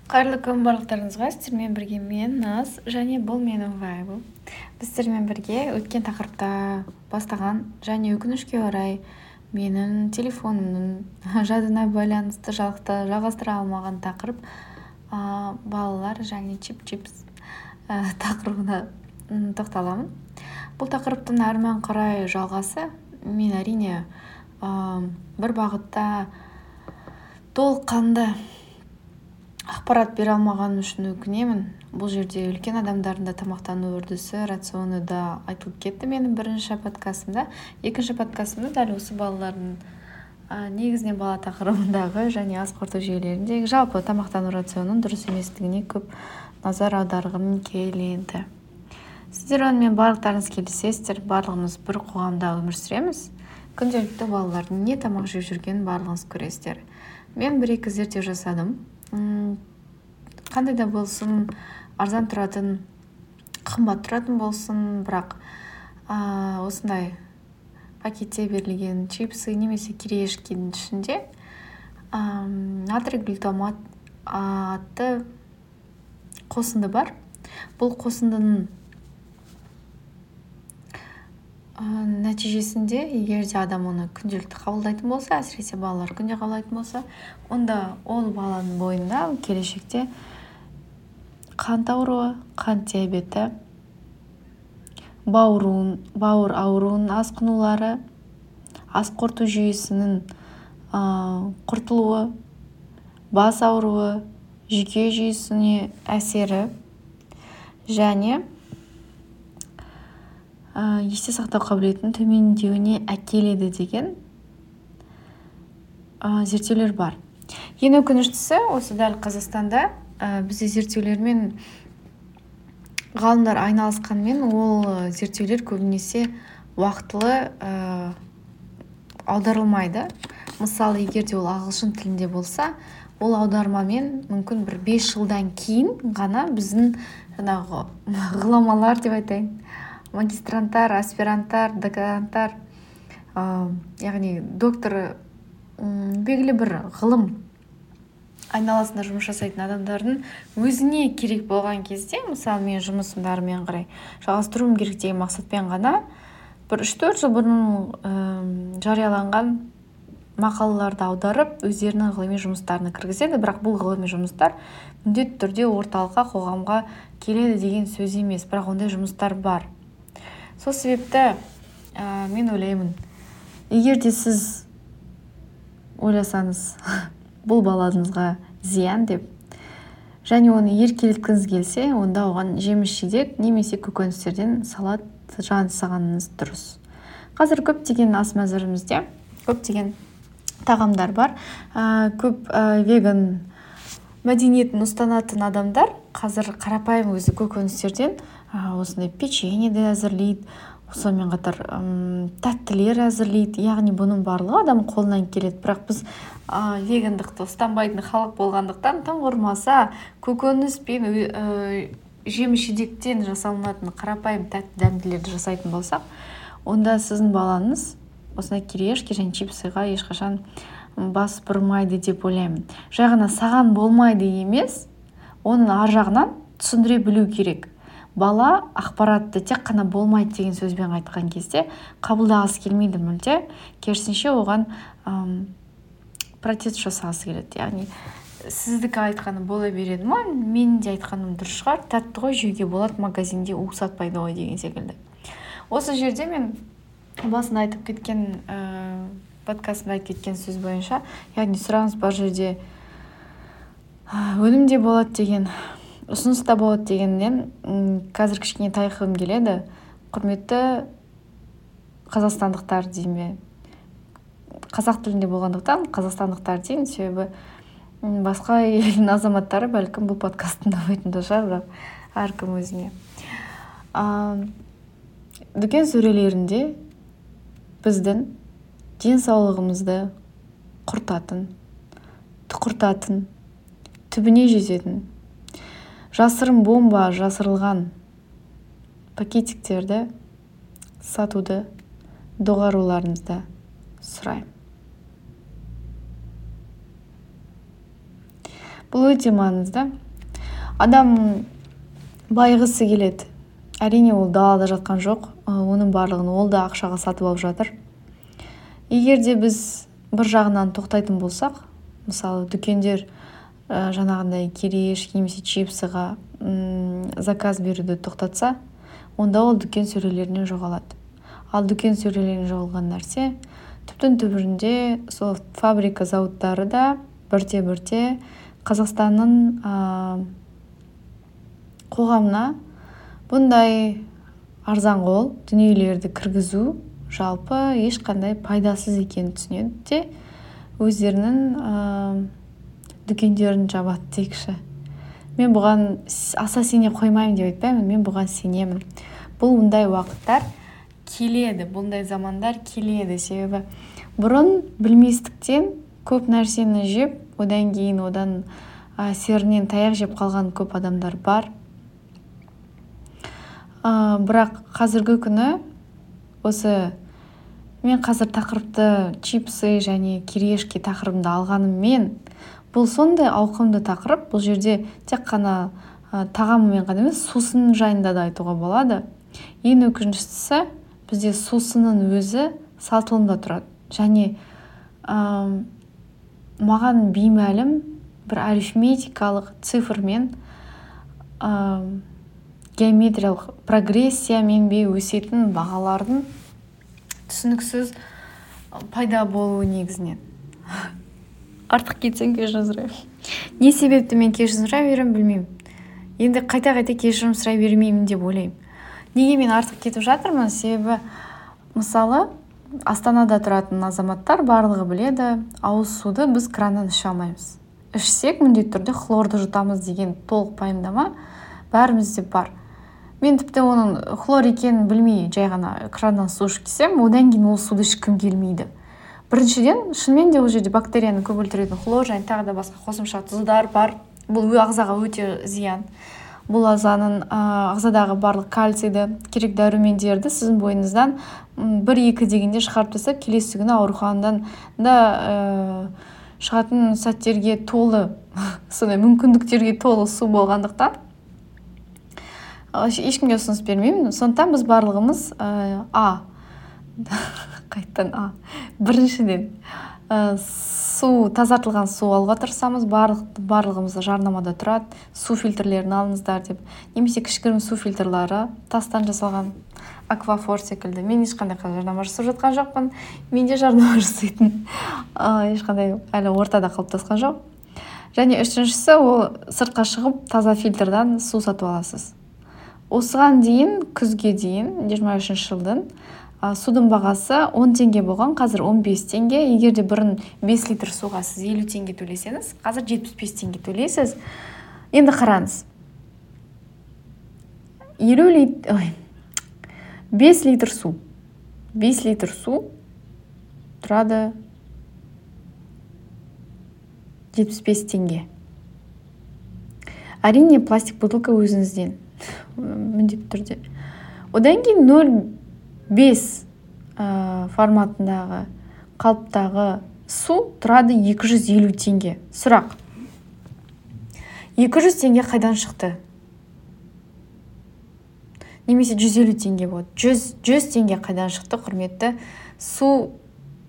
Қайырлы күн барлықтарыңызға. Сіздермен бірге мен Наз және бұл менің вайбым. Біз сіздермен бірге өткен тақырыпта бастаған және өкінішке орай менің телефонымның жадына байланысты жалғастыра алмаған тақырып балалар және чип-чипс тақырыбына тоқталамын. Бұл тақырыптың әрмен қарай жалғасы. Мен әрине бір бағытта толыққанды ақпарат бере алмағаным үшін өкінемін. Бұл жерде үлкен адамдардың да тамақтану үрдісі, рационы да айтылып кетті менің бірінші подкастымда. Екінші подкастымда дәл осы балалардың негізінен бала тақырыбындағы және ас қорыту жүйелеріндегі жалпы тамақтану рационының дұрыс еместігіне көп назар аударғым келеді. Сіздер онымен барлықтарыңыз келісесіздер. Барлығымыз бір қоғамда өмір сүреміз. Күнделікті балалардың не тамақ жеп жүргенін барлығыңыз көресіздер. Мен бір-екі зерттеу жасадым. Қандай да болсын, арзан тұратын, қымбат тұратын болсын, бірақ осындай пакетте берілген чипсы немесе кириешкенің ішінде натрий глутамат атты қосынды бар. Бұл қосындының нәтижесінде, егер де адам оны күнделікті қабылдайтын болса, әсіресе балалар күнде қабылдайтын болса, онда ол баланың бойында келешекте қант ауруы, қант диабеті, бауыр ауруының асқынулары, ас қорыту жүйесінің құртылуы, бас ауруы, жүйке жүйесіне әсері және есте сақтау қабілетінің төмендеуіне әкеледі деген зерттеулер бар. Ең өкініштісі, осы дәл Қазақстанда бізде зерттеулермен ғалымдар айналысқанмен, ол зерттеулер көбінесе уақытылы аударылмайды. Мысалы, егер де ол ағылшын тілінде болса, ол аудармамен мүмкін бір 5 жылдан кейін ғана біздің жаңағы ғұламалар деп айтайын, магистранттар, аспиранттар, докторанттар, яғни доктор белгілі бір ғылым айналасында жұмыс жасайтын адамдардың өзіне керек болған кезде, мысалы мен жұмысымды әрмен қарай жалғастыруым керек деген мақсатпен ғана бір 3-4 жыл бұрын жарияланған мақалаларды аударып, өздерінің ғылыми жұмыстарына кіргізеді. Бірақ бұл ғылыми жұмыстар міндетті түрде орталыққа, қоғамға келеді деген сөз емес, бірақ ондай жұмыстар бар. Сол себепті мен ойлаймын, егер де сіз ойласаңыз бұл балаңызға зиян деп, және оны еркелеткіңіз келсе, онда оған жеміс-жидек немесе көкөністерден салат жасағаныңыз дұрыс. Қазір көптеген ас мәзірімізде көптеген тағамдар бар. Көп веган мәдениетін ұстанатын адамдар қазір қарапайым өзі көкөністерден осындай печенье де әзірлейді, сонымен қатар тәттілер әзірлейді. Яғни бұның барлығы адам қолынан келеді. Бірақ біз вегандықты ұстанбайтын халық болғандықтан, тым құрмаса көкөніс пен жеміс-жидектен жасалынатын қарапайым тәтті дәмділерді жасайтын болсақ, онда сіздің балаңыз осындай кириешки және чипсыға ешқашан бас бұрмайды деп ойлаймын. Жай ғана саған болмайды емес, оның ар жағынан түсіндіре білу керек. Бала ақпаратты тек қана болмайды деген сөзбен айтқан кезде қабылдағысы келмейді мүлде, керісінше оған протест жасағысы келеді. Яғни сіздікі айтқаны бола береді ма, мен де айтқаным дұрыс шығар, тәтті ғой, жеуге болады, магазинде у сатпайды ғой деген секілді. Осы жерде мен басында айтып кеткен подкастымда айтып кеткен сөз бойынша, яғни сұраныс бар жерде өнім де болады деген, ұсыныс та болады дегеннен қазір кішкене тайқығым келеді. Құрметті қазақстандықтар дейме, қазақ тілінде болғандықтан қазақстандықтар деймін, себебі басқа елдің азаматтары бәлкім бұл подкастты тыңдамайтын да шығар, бірақ әркім өзіне. Дүкен сөрелерінде біздің денсаулығымызды құртатын, тұқыртатын, түбіне жететін жасырын бомба жасырылған пакетиктерді сатуды доғаруларыңызды сұраймын. бұл өте маңызды. Адам байығысы келеді. Әрине ол далада жатқан жоқ, оның барлығын ол да ақшаға сатып алып жатыр. Егер де біз бір жағынан тоқтайтын болсақ, мысалы дүкендер жаңағындай кереш немесе чипсыға заказ беруді тоқтатса, онда ол дүкен сөрелерінен жоғалады. Ал дүкен сөрелерінен жоғалған нәрсе түптің түбірінде сол фабрика зауыттары да бірте-бірте Қазақстанның қоғамына бұндай арзанқол дүниелерді кіргізу жалпы ешқандай пайдасыз екенін түсінеді де өздерінің дүкендерін жабады дейікші. Мен бұған аса сене қоймаймын деп айтпаймын, мен бұған сенемін. Бұл бұндай уақыттар келеді, бұндай замандар келеді. Себебі бұрын білместіктен көп нәрсені жеп, одан кейін одан серінен таяқ жеп қалған көп адамдар бар. Бірақ қазіргі күні осы мен қазір тақырыпты чипсы және кириешки тақырыбында алғаныммен, бұл сондай ауқымды тақырып. Бұл жерде тек қана тағамымен ғана емес, сусын жайында да айтуға болады. Ең өкініштісі, бізде сусынның өзі сатылымда тұрады. Және маған беймәлім бір арифметикалық цифрмен геометриялық прогрессиямен өсетін бағалардың түсініксіз пайда болуы негізінен. Артық кетсем кешірім сұраймын. Не себепті мен кешірім сұрай беремін, білмеймін. Енді қайта-қайта кешірім сұрай бермеймін деп ойлаймын. Неге мен артық кетіп жатырмын? Себебі мысалы Астанада тұратын азаматтар барлығы біледі, ауыз суды біз краннан іше алмаймыз. Ішсек міндетті түрде хлорды жұтамыз деген толық пайымдама бәрімізде бар. Мен тіпті оның хлор екенін білмей жай ғана краннан су ішіп кетсем, одан кейін ол суды ішкім келмейді. Біріншіден, шынымен де ол жерде бактерияны көп өлтіретін хлор және тағы да басқа қосымша тұздар бар. Бұл ағзаға өте зиян. Бұл ағзадағы барлық кальцийді, керек дәрумендерді сіздің бойыңыздан 1-2 дегенде шығарып тастап, келесі күні ауруханадан да шығатын сәттерге толы, сондай мүмкіндіктерге толы су болғандықтан ешкімге ұсыныс бермеймін. Сондықтан біз барлығымыз біріншіден тазартылған су алуға тырысамыз. Барлығымыз жарнамада тұрады, су фильтрлерін алыңыздар деп. Немесе кішігірім су фильтрлары тастан жасалған аквафор секілді. Мен ешқандай жарнама жасап жатқан жоқпын. Менде жарнама жасайтын ешқандай әлі ортада қалыптасқан жоқ. Және үшіншісі, ол сыртқа шығып таза фильтрдан су сатып аласыз. Осыған дейін, күзге дейін, 23 жылдың судың бағасы 10 теңге болған, қазір 15 теңге. Егер де бұрын 5 литр суға сіз 50 теңге төлесеңіз, қазір 75 теңге төлейсіз. Енді қараңыз. 5 литр су. 5 литр су тұрады 75 теңге. Әрине, пластик бутылка өзіңізден. Міндетті түрде. Одан кейін 0,5 форматындағы қалыптағы су тұрады 250 теңге. Сұрақ. 200 теңге қайдан шықты? Немесе 150 теңге болады. 100 теңге қайдан шықты, құрметті су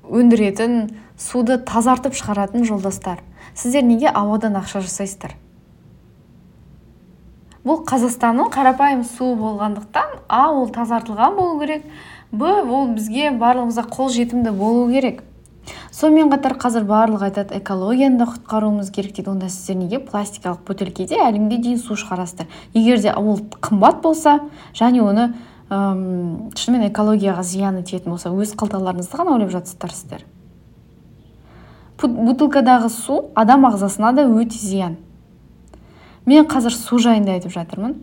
өндіретін, суды тазартып шығаратын жолдастар? Сіздер неге ауадан ақша жасайсыздар? Бұл Қазақстанның қарапайым су болғандықтан, ол тазартылған болу керек, ол бізге барлығымызға қол жетімді болу керек. Сонымен қатар қазір барлығы айтады, экологияны да құтқаруымыз керек дейді. Онда сіздер неге пластикалық бөтелкеде әліңге дейін су шығарасыздар? Егер де ол қымбат болса, және оны шынымен экологияға зияны тиетін болса, өз қалталарыңызды ғана ойлап жатсыздар сіздер. Бутылкадағы су адам ағзасына да өте зиян. Мен қазір су жайында айтып жатырмын.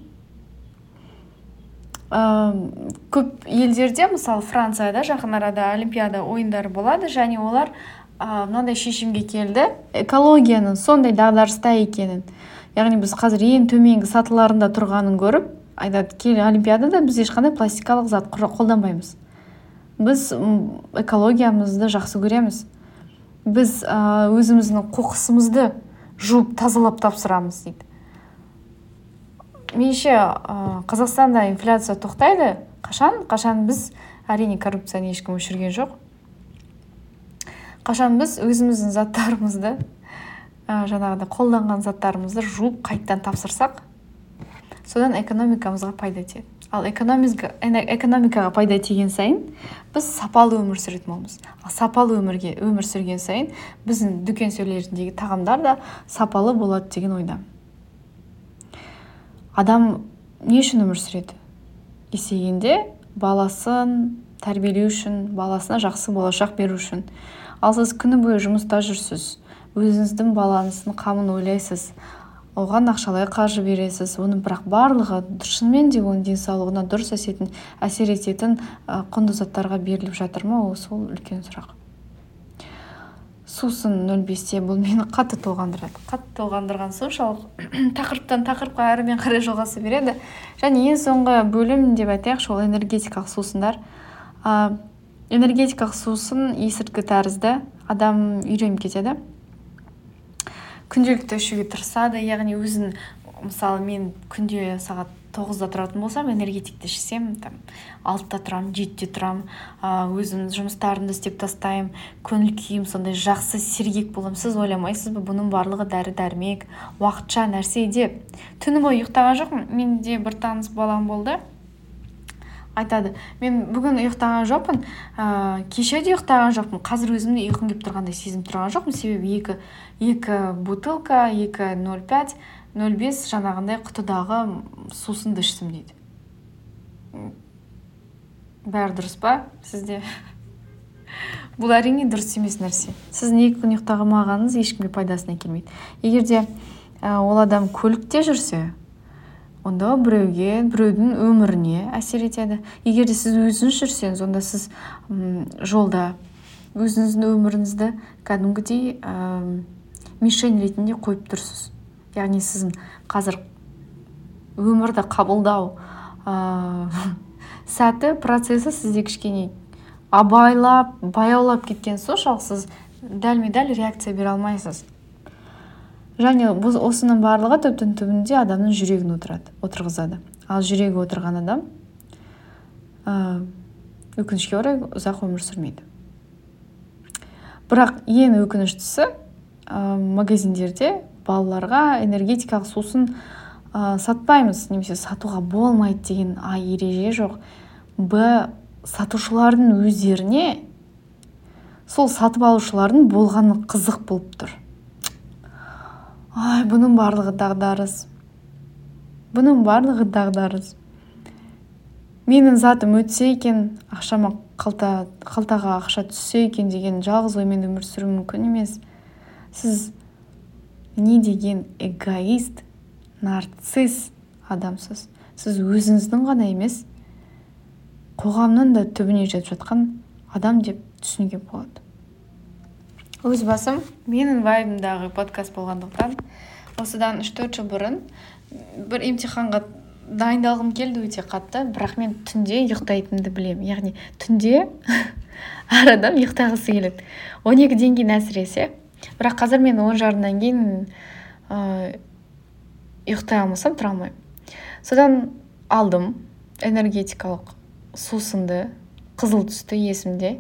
Көп елдерде, мысалы Францияда жақын арада олимпиада ойындары болады, және олар мынандай шешімге келді, экологияның сондай дағдарыста екенін. Яғни біз қазір ең төменгі сатыларында тұрғанын көріп, айтады, олимпиадада біз ешқандай пластикалық зат қолданбаймыз. Біз экологиямызды жақсы көреміз. Біз өзіміздің қоқысымызды жуып тазалап тапсырамыз дейді. Меніңше Қазақстанда инфляция тоқтайды. Қашан біз, әрине коррупцияны ешкім өшірген жоқ. Қашан біз өзіміздің заттарымызды, жаңағыда қолданған заттарымызды жуып қайттан тапсырсақ, содан экономикамызға пайда тиеді. Ал экономикаға пайда тиген сайын біз сапалы өмір сүретін боламыз. Ал сапалы өмір сүрген сайын біздің дүкен сөйлеріндегі тағамдар да сапалы болады деген ойдамын. Адам не үшін өмір сүреді? Есейгенде баласын тәрбиелеу үшін, баласына жақсы болашақ беру үшін. Ал сіз күні бойы жұмыста жүрсіз, өзіңіздің балаңыздың қамын ойлайсыз, оған ақшалай қаржы бересіз, оның бірақ барлығы шынымен де оның денсаулығына дұрыс әсер ететін құнды заттарға беріліп жатыр ма? Сол үлкен сұрақ. Сусын 0,5-те бұл мені қатты толғандырады. Қатты толғандырған соншалық тақырыптан тақырыпқа әрімен қарай жалғаса береді. Және ең соңғы бөлім деп айтайықшы, ол энергетикалық сусындар. Энергетикалық сусын есірткі тәрізді, адам үйреніп кетеді. Күнделікті ішуге тырысады, яғни өзін, мысалы мен күнде сағат 9-да тұратын болсам, энергетикті ішсем, 6-да тұрам, 7-де тұрам, өзім жұмыстарымды істеп тастайым, көңіл күйім сондай жақсы сергек болам. Сіз ойламайсыз ба, бұның барлығы дәрі-дәрмек, уақытша нәрсе деп. Түні бойы ұйықтаған жоқпын. Менде бір таныс балам болды. Айтады, мен бүгін ұйықтаған жоқпын, кеше де ұйықтаған жоқпын, қазір өзімді ұйқым келіп тұрғандай сезім тұрған жоқпын, себебі екі бутылка, 2,05, 0,5 жаңағындай құтыдағы сусынды іштім дейді. Бәрі дұрыс па сізде? Бұл әрине дұрыс емес нәрсе. Сіздің 2 күн ұйықтамағаныңыз ешкімге пайдасына келмейді. Егер де ол адам көлікте жүрсе, онда біреудің өміріне әсер етеді. Егер де сіз өзіңіз жүрсеңіз, онда сіз жолда өзіңіздің өміріңізді кәдімгідей мишень ретінде қойып тұрсыз. Яғни сіздің қазір өмірді қабылдау сәті, процесі сізде кішкене баяулап кеткен соншалық сіз дәлме-дәл реакция бере алмайсыз. Және осының барлығы түбінде адамның жүрегін отырғызады. Ал жүрегі отырған адам өкінішке орай ұзақ өмір сүрмейді. Бірақ ең өкініштісі, магазиндерде балаларға энергетикалық сусын сатпаймыз, немесе сатуға болмайды деген ереже жоқ. Сатушылардың өздеріне сол сатып алушылардың болғаны қызық болып тұр. Бұның барлығы дағдарыс. Менің затым өтсе екен, ақшама қалтаға ақша түссе екен деген жалғыз оймен өмір сүру мүмкін емес. Сіз не деген эгоист, нарцисс адамсыз. Сіз өзіңіздің ғана емес, қоғамның да түбіне жетіп жатқан адам деп түсінуге болады. Өз басым, менің вайбымдағы подкаст болғандықтан, осыдан 3-4 жыл бұрын бір емтиханға дайындалғым келді өте қатты, бірақ мен түнде ұйықтайтынымды білемін. Яғни түнде әр адам ұйықтағысы келеді. 12-ден кейін әсіресе. Бірақ қазір мен 10:30-дан кейін ұйықтай алмасам тұра алмаймын. Содан алдым энергетикалық сусынды, қызыл түсті есімде.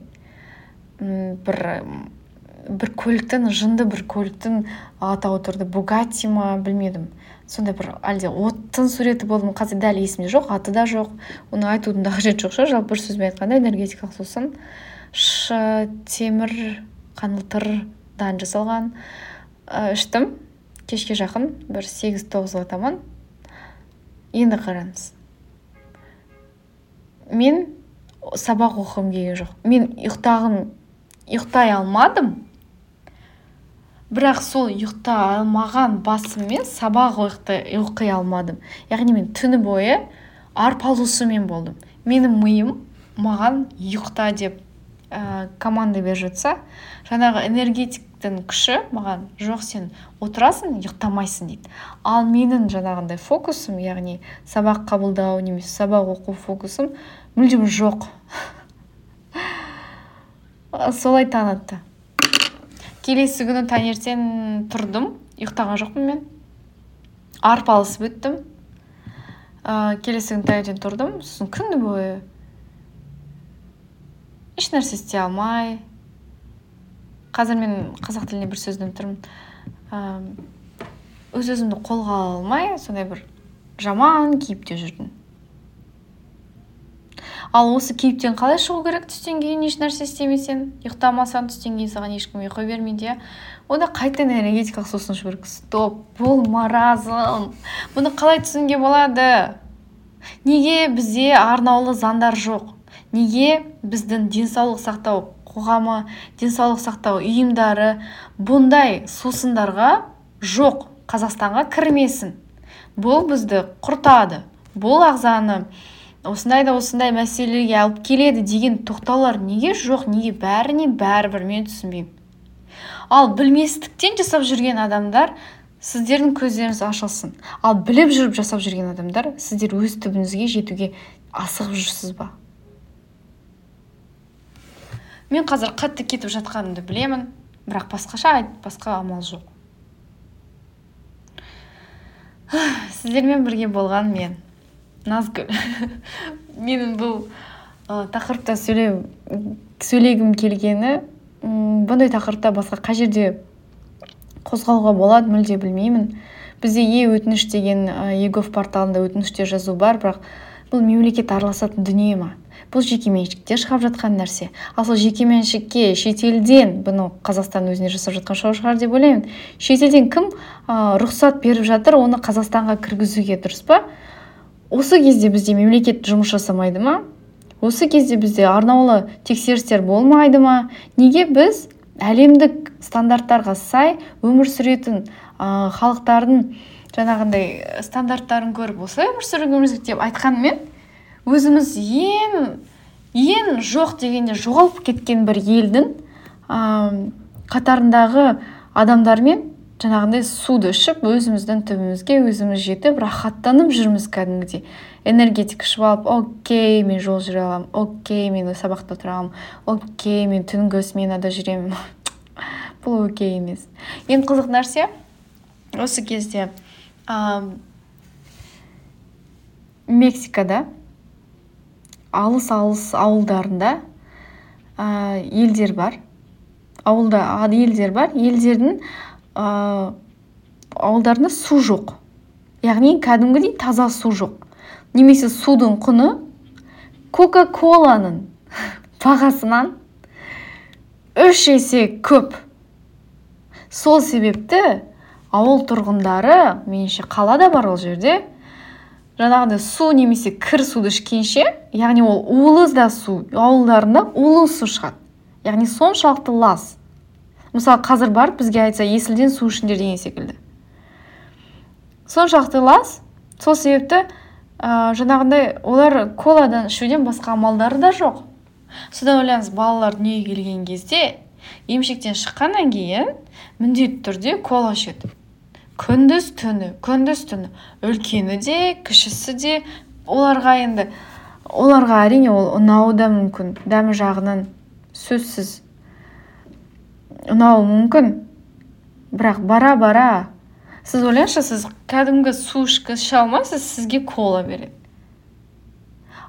Бір көліктің, жынды бір көліктің атауы тұрды. Бугатти ма, білмедім. Сондай бір әлде оттың суреті болды ма, қазір дәл есімде жоқ, аты да жоқ. Оны айтудың да қажеті жоқ. Жалпы бір сөзбен айтқанда энергетикалық сусын темір қаңылтырдан жасалған іштім. Кешке жақын бір 8-9-ға таман. Енді қараңыз. Мен сабақ оқығым келген жоқ. Мен ұйықтай алмадым. Бірақ сол ұйықтай алмаған басыммен сабақ оқи алмадым. Яғни мен түні бойы арпалысумен болдым. Менің миым маған ұйықта деп команда беріп жатса, жаңағы энергетиктің күші маған жоқ, сен отырасың, ұйықтамайсың дейді. Ал менің жаңағындай фокусым, яғни сабақ қабылдау немесе сабақ оқу фокусым мүлдем жоқ. Солай танытты. Келесі күні таңертең тұрдым, ұйықтаған жоқпын мен. Арпалысып өттім. Келесі күні таңертең тұрдым, сосын күні бойы еш нәрсе істей алмай. Қазір мен қазақ тілінде бір сөз іздеп тұрмын. Өз-өзімді қолға ала алмай, сондай бір жаман кейіпте жүрдім. Ал осы кейіптен қалай шығу керек? Түстен кейін еш нәрсе істемесең, ұйықтамасаң, түстен кейін саған ешкім ұйқы бермейді. Онда қайтадан энергетикалық сусын ішу керек. Стоп, бұл маразм. Бұны қалай түсінуге болады? Неге бізде арнаулы заңдар жоқ? Неге біздің денсаулық сақтау қоғамы, денсаулық сақтау ұйымдары бұндай сусындарға жоқ? Қазақстанға кірмесін. Бұл бізді құртады. Бұл ағзаны осындай мәселеге алып келеді деген тоқтаулар неге жоқ? Неге бәріне бәрібір мен түсінбеймін. Ал білместіктен жасап жүрген адамдар, сіздердің көздеріңіз ашылсын. Ал біліп жүріп жасап жүрген адамдар, сіздер өз түбіңізге жетуге асығып жүрсіз ба? Мен қазір қатты кетіп жатқанымды білемін, бірақ басқа амал жоқ. Сіздермен бірге болған мен, Назгүл. Менің бұл тақырыпта сөйлегім келгені, бұндай тақырыпта басқа қай жерде қозғалуға болады, мүлде білмеймін. Бізде өтініш деген егов порталында өтініштер жазу бар, бірақ бұл мемлекет араласатын дүние ма? Бұл жекеменшікте шығып жатқан нәрсе. Ал сол жекеменшікке шетелден, бұны Қазақстан өзіне жасап жатқан шығар деп ойлаймын. Шетелден кім рұқсат беріп жатыр, оны Қазақстанға кіргізуге, дұрыс па? Осы кезде бізде мемлекет жұмыс жасамайды ма? Осы кезде бізде арнаулы тексерістер болмайды ма? Неге біз әлемдік стандарттарға сай өмір сүретін халықтардың жаңағындай стандарттарын көріп осылай өмір сүруіміз деп айтқанмен, өзіміз ең жоқ дегенде жоғалып кеткен бір елдің қатарындағы адамдармен жаңағындай суды ішіп, өзіміздің түбімізге өзіміз жетіп, рахаттанып жүрміз кәдімгідей. Энергетик ішіп алып, окей, мен жол жүре аламын, окей, мен сабақта отыра аламын, окей, мен түнгі сменада жүремін. Бұл окей емес. Ең қызық нәрсе, осы кезде Мексикада алыс ауылдарында елдер бар. Елдердің ауылдарында су жоқ. Яғни кәдімгідей таза су жоқ. Немесе судың құны Кока-коланың бағасынан 3 есе көп. Сол себепті ауыл тұрғындары, меніңше қалада бар ол жерде, жаңағыдай су немесе кір суды ішкенше, яғни ол улы су, ауылдарында улы су шығады. Яғни соншалықты лас. Мысалы, қазір бар, бізге айтса, есілден су ішіңдер деген секілді. Соншалықты лас, сол себепті жаңағындай олар коладан ішуден басқа амалдары да жоқ. Содан ойлаңыз, балалар дүниеге келген кезде, емшектен шыққаннан кейін міндетті түрде кола ішеді. Күндіз түні. Үлкені де, кішісі де, оларға әрине ол ұнауы да мүмкін. Дәмі жағынан сөзсіз ұнауы мүмкін. Бірақ бара-бара, сіз ойлаңызшы, сіз кәдімгі су іше алмайсыз, сізге кола береді.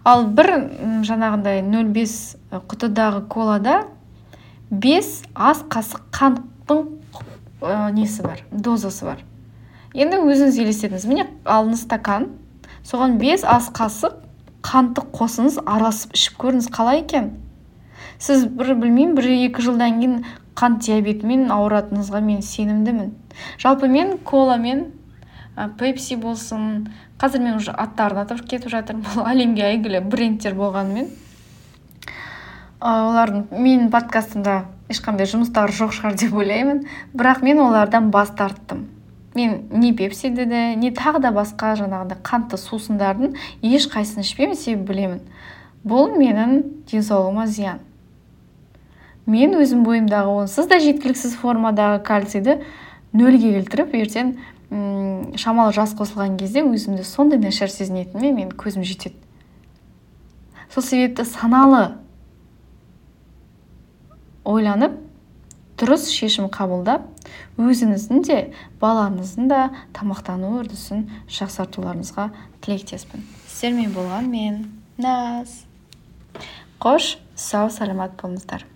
Ал бір жаңағындай 0,5 құтыдағы колада 5 ас қасық қанттың несі бар, дозасы бар. Енді өзіңіз елестетіңіз. Міне алыңыз стакан, соған 5 ас қасық қантты қосыңыз, араласып ішіп көріңіз, қалай екен? Сіз білмеймін, 1-2 жылдан кейін қант диабетімен ауыратыныңызға мен сенімдімін. Жалпы мен коламен, пепси болсын, қазір мен уже аттарын атап кетіп жатырмын, бұл әлемге әйгілі брендтер болғанымен. Олардың менің подкастымда ешқандай жұмыстары жоқ шығар деп ойлаймын, бірақ мен олардан бас тарттым. Мен не пепсиді де, не тағы да басқа жаңағындай қантты сусындардың еш қайсысын ішпеймін, себебі білемін. Бұл менің денсаулығыма зиян. Мен өзім бойымдағы онсыз да жеткіліксіз формадағы кальцийді 0-ге келтіріп, ертең шамалы жас қосылған кезде өзімді сондай нашар сезінетініме мен көзім жетеді. Сол себепті саналы ойланып, дұрыс шешім қабылдап, өзіңіздің де балаңыздың да тамақтану үрдісін жақсартуларыңызға тілектеспін. Сіздермен болған мен Наз. Қош, сау саламат болыңыздар.